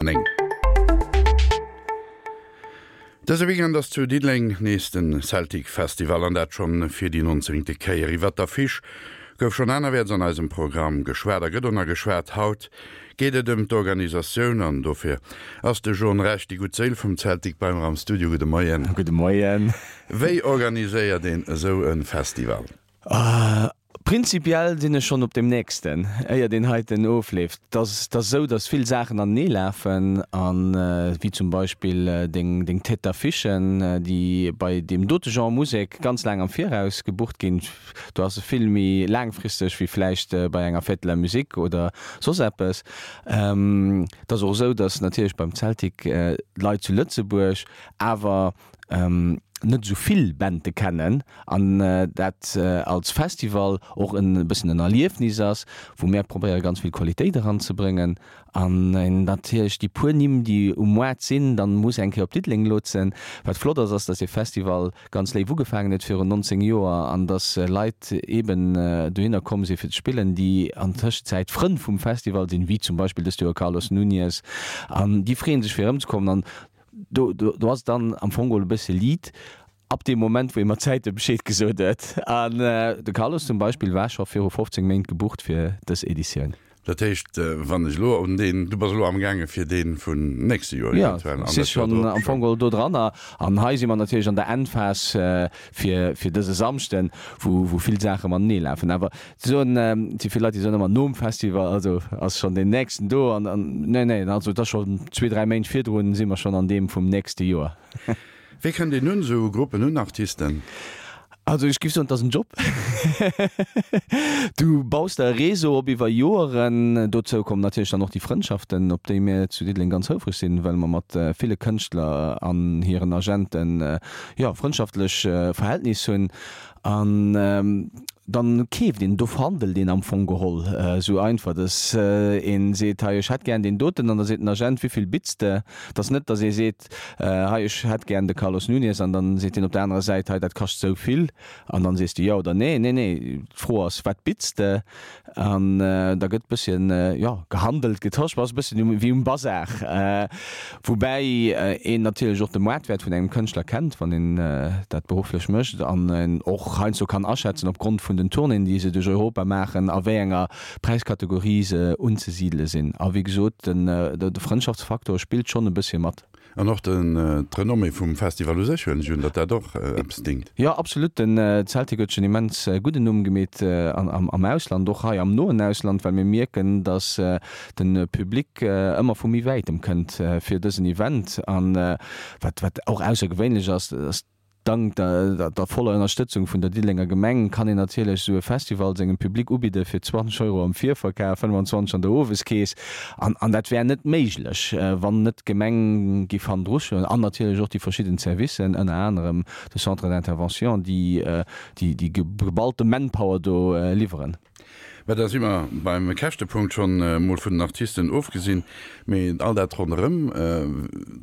9. Dëse Weekend ass zu Diddeleng nees den Celtic Festival an dat schonn fir déi nonzéngte Kéier. Iwwert d'Affiche gouf schonn anerwäerts an eisem Programm geschwat a gëtt och nach geschwat. Haut geet et ëm d'Organisatioun an dofir ass de John Rech, déi gutt Séil vum Celtic, bei mer am Studio. Gudde Moien. Gudde Moien. Wéi organiséiert een esou e Festival? Prinzipiell sinn ech schonn op deem nächsten, éier deen heiten ofleeft. Et ass, et ass esou, datt vill Saachen anenee lafen, a wéi zum Beispill deng, deng Tête d'affichen, déi bei deem dote Genre Musek ganz laang am Viraus gebucht ginn. Do ass e vill méi laangfristeg wéi vläicht bei enger Fête de la Musique oder soss eppes. Et ass och esou, datt natierlech beim Zeltik d'Leit zu Lëtzebuerg awer net esou vill Bände kennen an dat als Festival och e bëssen en Erliefnis ass, wou mär probéiere ganz vill Qualitéit eranzebréngen an een natierlech déi puer Nimm, déi um Moart sinn, dann muss eng Kéier op Diddeleng lotsen. Wat flott ass, ass, dass dee Festival ganz léif ugefaangen huet virun 19 Joer an dass Leit eeben dohinner komm si fir ze spillen, déi an Tëschenzäit Frënn vum Festival sinn, wéi zum Beispill dëst Joer Carlos Nuñez an déi freeën sech fir erëmzekommen an Do, do, do ass et dann am Fong geholl e bësse Lead ab deem Moment, wou ee mat Zäite Bescheed gesot huet. An de Carlos zum Beispill war scho viru 15 Méint gebucht fir dës Editioun. Dat heescht, wann ech elo un deen, du bass elo amgaange fir dee vun nächste Joer eventuell an dat Joer drop? Jo, si schonn am Fong geholl do dran. An hei si mer natierlech an der Endphas fir, fir dëse Samschden, wou, wou vill Saache matenee lafen. Awer Ze soen, et si vill Leit, déi soen ëmmer nom Festival, also ass schonn deen nächsten do an, an nee, nee, also et ass schonn zwee, dräi Méint virdrun si mer schonn an deem vum nächste Joer. Wéi kënnt een un esou Gruppen, un Artisten? Also ech géif soen, et ass en Job. Du baus der e Réseau op iwwer Joeren. Dozou kommen natierlech dann och déi Frëndschaften, op déi mir zu Diddeleng ganz houfreg sinn, well mer mat ville Kënschtler an hiren Agenten, jo, frëndschaftlech Verhältnis hunn. An dann keeft een, do verhandelt een am Fong geholl esou einfach, dass een seet, hei ech hätt gären deen doten, an da seet den Agent, wéivill bitts de? Et ass net, dass ee seet, hei ech hätt gären de Carlos Nunes, an dann seet deen op der anerer Säit, hei dat kascht esou vill, an dann sees de jo oder nee. Nee, nee, d'Fro ass, wat bitts de? An da gëtt bësschen, jo, gehandelt, getosch, ass e bësschen wéi um Bazar. Woubäi een natierlech och de Moartwäert vun engem Kënschtler kennt, wann een dat berufflech mécht an en och heiansdo kann aschätzen, opgrond vun den Tournéen, déi se duerch Europa maachen, a wéi enger Präiskategorie se unzesidele sinn. A wéi gesot, de Frëndschaftsfaktor spillt schonn e bëssche mat. An och d'Renommée vum Festival u sech, huelen ech un, datt dat och eppes dingt. Jo, absolut. Den Celtic huet sech en immens gudden Numm gemeet am Ausland, och hei am noen Ausland, well mir mierken, datt de Public ëmmer vu méi wäitem kënnt fir dësen Event. An wat wat och aussergewéinlech ass, ass, Dank der voller Ënnerstëtzung vun der Diddelenger Gemeng kann een natierlech esou e Festival sengem Public ubidde fir 20 Euro am Virverkaf, 25 an der Oweskeess. An an dat wär net méiglech, wann net d'Gemeng giff hannendru stoen an natierlech och déi verschidden Servicen, ënner anerem de Centre d'intervention, déi déi geballte Manpower do liwweren. Mä da si mer beim Käschtepunkt, schonn emol vun den Artisten ofgesinn. Mee all dat ronderëm,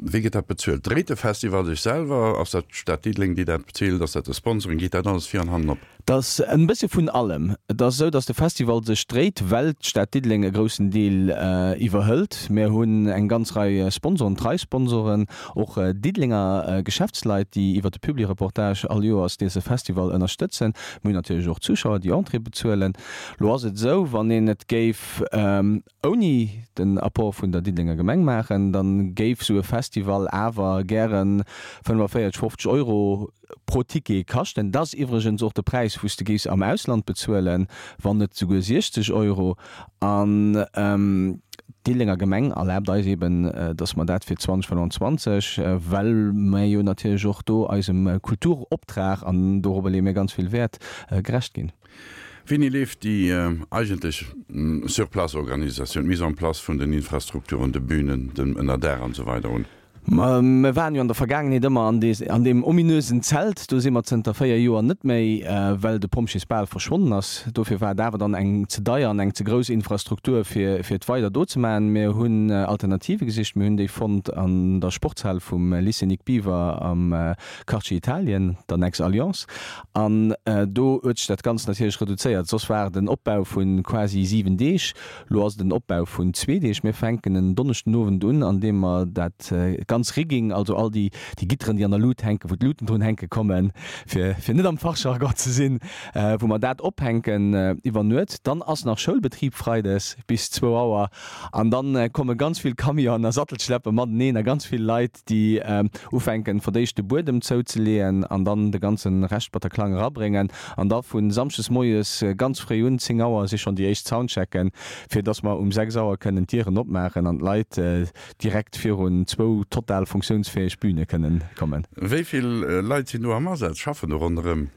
wéi gëtt dat bezuelt? Dréit de Festival sech selwer? Ass dat d'Stad Diddeleng, déi dat bezilt? Ass dat de Sponsoring? Geet dat alles vir an hannen op? Et ass en bësse vun allem. Et ass esou, datt de Festival sech dréit, well d'Stad Diddeleng e groussen Deel iwwerhëlt. Mir hunn eng ganz Rei Sponsoren, trei Sponsoren, och Diddelenger Geschäftsleit, déi iwwer de Publireportage all Joers dëse Festival ënnerstëtzen. Mir hunn natierlech och Zuschauer, déi Entrée bezuelen. Lo ass et esou, wann een et géif ouni den Apport vun der Diddelenger Gemeng maachen, da géif esou e Festival awer gäre 45, 50 Euro pro Ticket kaschten. Dat ass iwwregens och de Präis, wou s de géifs am Ausland bezuelen, wann net souguer 60 Euro. An d'Diddelenger Gemeng erlaabt eis eben, dass mer dat fir 2025, well mer jo natierlech och do eisem Kulturoptrag, an dorobber leeë mir ganz vill Wäert, gerecht ginn. Wéini leeft déi eigentlech Sur-place-Organisatioun, d'Mise en place vun den Infrastrukturen, de Bünen, dem Ënnerdaach an esou weider un? Mer waren jo an der Vergaangenheet ëmmer an an deem ominösen Zelt. Do si mer zënter 4 Joer net méi, well de Pompjeesbal verschwonnen ass. Dofir war et awer dann eng ze deier an eng ze grouss Infrastruktur, fir fir et weider do ze maachen. Mir hunn Alternative gesicht. Mir hunn déi fonnt an der Sportshal vum Lycée Nic Biever am Quartier Italien, der Nex Alliance. An do huet sech dat Ganzt natierlech reduzéiert. Soss war et en Opbau vu quasi 7 Deeg. Lo ass et en Opbau vun zwee Deeg. Mir fänken en Donneschden Owend un, an deem mer dat ganz Rigging, also all déi Gitteren, déi an der Lut hänken, wou d'Luten drun hänke kommen, fir fir net am Fachjargon ze sinn, wou mer dat ophänken iwwer Nuet. Dann ass nach Schoulbetrib freides bis zwou Auer an dann komme ganz vill Camionen a Sattelschleppe mateneen a ganz vill Leit, déi ufänken fir d'éischt de Buedem zouzeleeën an dann de ganze Rescht Bataclan erabréngen an da vu Samschdes moies ganz fréi un, 10 Auer si schonn déi éischt Soundchecken, fir dass mer um 6 Auer kënnen d'Dieren opmaachen an d'Leit direkt virun zwou total funktiounsfäeg Büne kënnen kommen. Wéi vill Leit sinn do am Asaz, schaffen do ronderëm?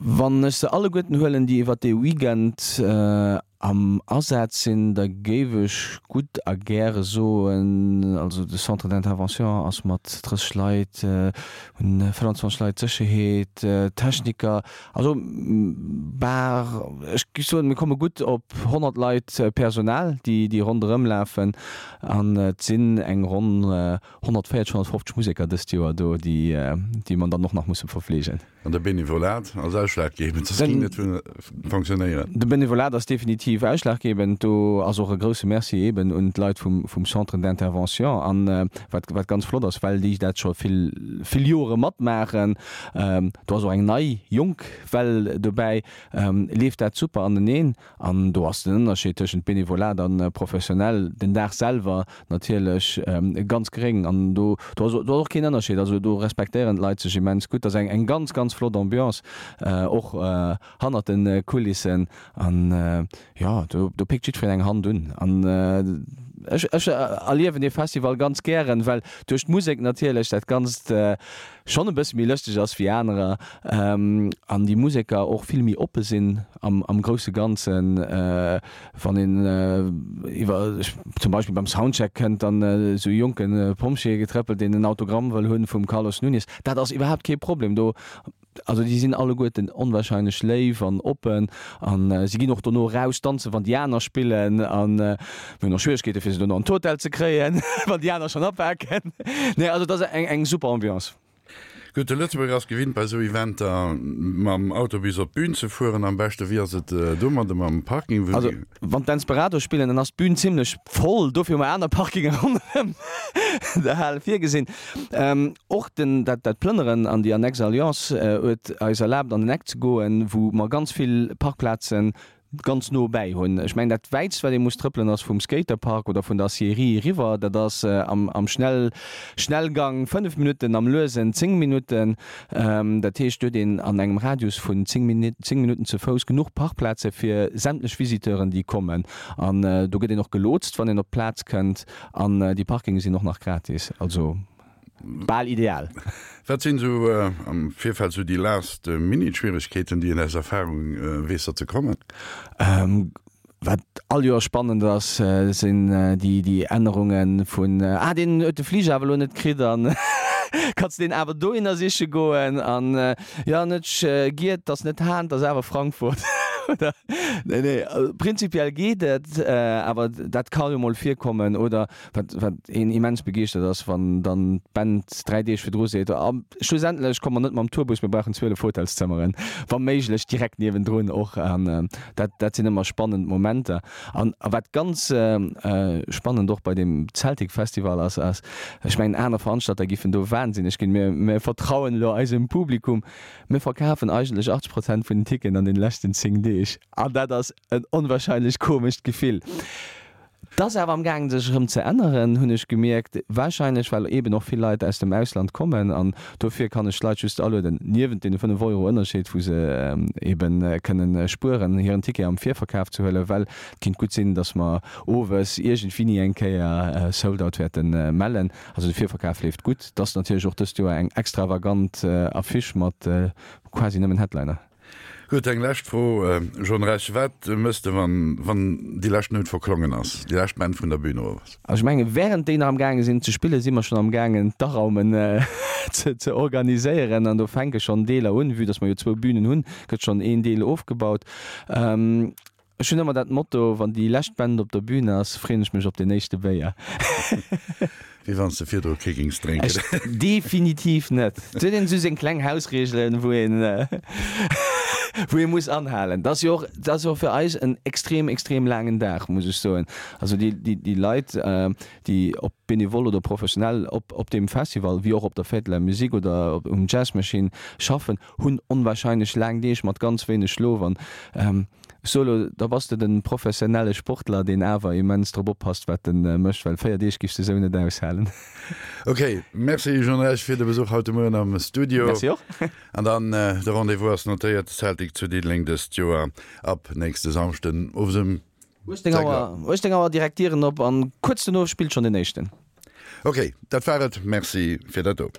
Wann ech se alleguerten huelen, déi iwwert dee Weekend am Asaz sinn, da géif ech gutt a gäre soen, also de Centre d'intervention ass mat 30 Leit, hunn 25 Leit Sécherheet, Techniker, also bar, ech géif soen, mir komme gutt op 100 Leit Personal, déi déi ronderëm lafen an et sinn eng ronn 140, 150 Museker dëst Joer do, déi déi mer dann och nach musse verfleegen. An de Benevolat ass ausschlaggebend, soss géing net fonctionnéieren. De Benevolat ass definitiv ausschlaggebend. Do ass och e grousse Merci eeben un d'Leit vum Centre d'intervention. An wat, wat ganz flott ass, well déi dat scho vill, vill Jore matmaachen, do ass och eng nei, jonk Well dobäi, leeft dat super aneneen. An do ass den Ënnerscheed tëschent Benevolat a professionell den Dag selwer natierlech ganz geréng. An do do ass och keen Ënnerscheed. Also do respektéieren d'Leit sech immens gutt. Dat ass eng ganz, ganz flott Ambiance och hannert de Kulissen. An jo, do do péckt jiddwereen eng Hand un. An ech ech erliewen dee Festival ganz gären, well duerch d'Musek natierlech dat Ganzt schonn e bësse méi lëschteg ass wéi anerer an déi Museker och vill méi oppe sinn am am grousse Ganzen. Wann een iwwer zum Beispill beim Soundcheck kënnt dann esou e jonke Pompjee getrëppelt, deen en Autogramm wëll hunn vum Carlos Nunes, dat ass iwwerhaapt kee Problem do. Also déi sinn alleguerten onwahrscheinlech léif an oppen an si ginn och dono eraus danzen, wann déi aner spillen an mir hunn och Schwieregkeete fir se dono an d'Hotel ze kréien, wann déi aner schonn apaken. Nee, also et ass eng eng super Ambiance. Gutt, de Lëtzebuerger ass gewinnt bei esou Eventer mam Autobus op d'Bün ze fueren am beschten. Wéi ass et domadde mam Parking? Also wann d'Desperados spillen, dann ass d'Bün zimlech voll, dofir hu mer aner Parkinge ronderëm der Hal virgesinn. Och den, dat, dat Plënneren an déi Annexe Alliance huet eis erlaabt an den Eck ze goen, wou mer ganz vill Parkplazen ganz no bäi hunn. Ech mengen, dat wäitst, wat ee muss trëppelen, ass vum Skaterpark oder vun der Aciérie eriwwer. Dat ass am, am Schnell, Schnellgang 5 Minutten, am Luesen 10 Minutten. Dat heescht, do huet een an engem Radius vun 10 Minuten, 10 Minutten ze Fouss genuch Parkplaze fir sämtlech Visiteuren, déi kommen. An do gëtt een och gelotst, wann een op d'Plaz kënnt. An déi Parkinge sinn och nach gratis, also bal ideal. Wat sinn esou am Virfeld esou déi last minute Schwieregkeeten, déi een aus Erfahrung weess, datt se kommen? Wat all Joer spannend ass, sinn déi Ännerunge vun, ah deen huet de Fliger awer elo net kritt an kanns de deen awer dohinner siche goen an jo net Giet, 't ass net Hahn, 't ass awer Frankfurt oder nee nee prinzipiell geet et, awer dat ka jo mol virkommen oder wat wat een immens begeeschtert ass, wann dann d'Band 3 Deeg virdru seet, a schlussendlech komme mer net mam Tourbus, mir brauchen 12 Hotelszëmmeren, wa méiglech direkt niewendrun och. An dat dat sinn ëmmer spannend Momenter. An a wat ganz spannend och bei deem Celtic Festival ass, ass, ech mengen aner Veranstalter giffen do wahnsinneg ginn, mir mir vertrauen elo eisem Publikum, mir verkafen eigentlech 80 Prozent vun den Ticketen an den leschten 10 Deeg. An dat ass en onwahrscheinlech komescht Gefill. 't ass awer am gaangen sech erëm ze änneren, hunn ech gemierkt, wahrscheinlech well eeben och vill Leit aus dem Ausland kommen an dofir kann ech d'Leit just alueden, niewent deene 5 Euro Ënnerscheed, wou se eeben kënnen spueren, hiren Ticket am Virverkaf ze huelen, well et kinnt gutt sinn, datt mer owes iergendwéini eng Kéier Sold out wäerte mellen. Also de Virverkaf leeft gutt. 't ass natierlech och dëst Joer eng extravagant Affiche mat quasi nëmmen Headliner. Gutt, eng lescht Fro, John Rech, Wat mëss de, wann, wann déi lescht Nout verklongen ass, déi lescht Band vun der Bühn erof ass? Also ech mengen, während déi nach am gaange sinn ze spillen, si mer schonn am gaangen d'Araumen ze, ze organiséieren an do fänke schonn Deeler un. Vue dass mer jo zwou Bühnen hunn, gëtt schonn een Deel ofgebaut. Ech hunn ëmmer dat Motto, wann déi lescht Band op der Bühn ass, freeën ech mech op den éischte Béier. Wéi wann s de virdru kee géings drénken. Ech definitiv net. Et huet een esou seng kleng Hausregelen, wou een, wou ee muss anhalen. Dat ass jo och, dat ass jo och fir eis en extrem, extrem laangen Dag, muss ech soen. Also déi, déi, déi Leit, déi ob benevol oder professionell op, op deem Festival, wéi och op der Fête de la Musique oder op, um Jazz Machine schaffen, hunn onwahrscheinlech laang Deeg mat ganz wéineg Schlof an ech soe lo, da bass de den professionelle Sportler, deen awer immens drop oppasst wat en mécht, well 4 Deeg giffs de sou net aushalen. Ok, merci Jean Rech fir de Besuch haut de Mueren am Studio. Merci och. An dann de Rendez-vous ass notéiert, Celtic zu Diddeleng dëst Joer ab nächste Samschden owes ëm 18 Auer, 18 Auer direkt Dieren op an kuerz dono spillt schonn den éischten. Ok, dat war et, merci fir dat do.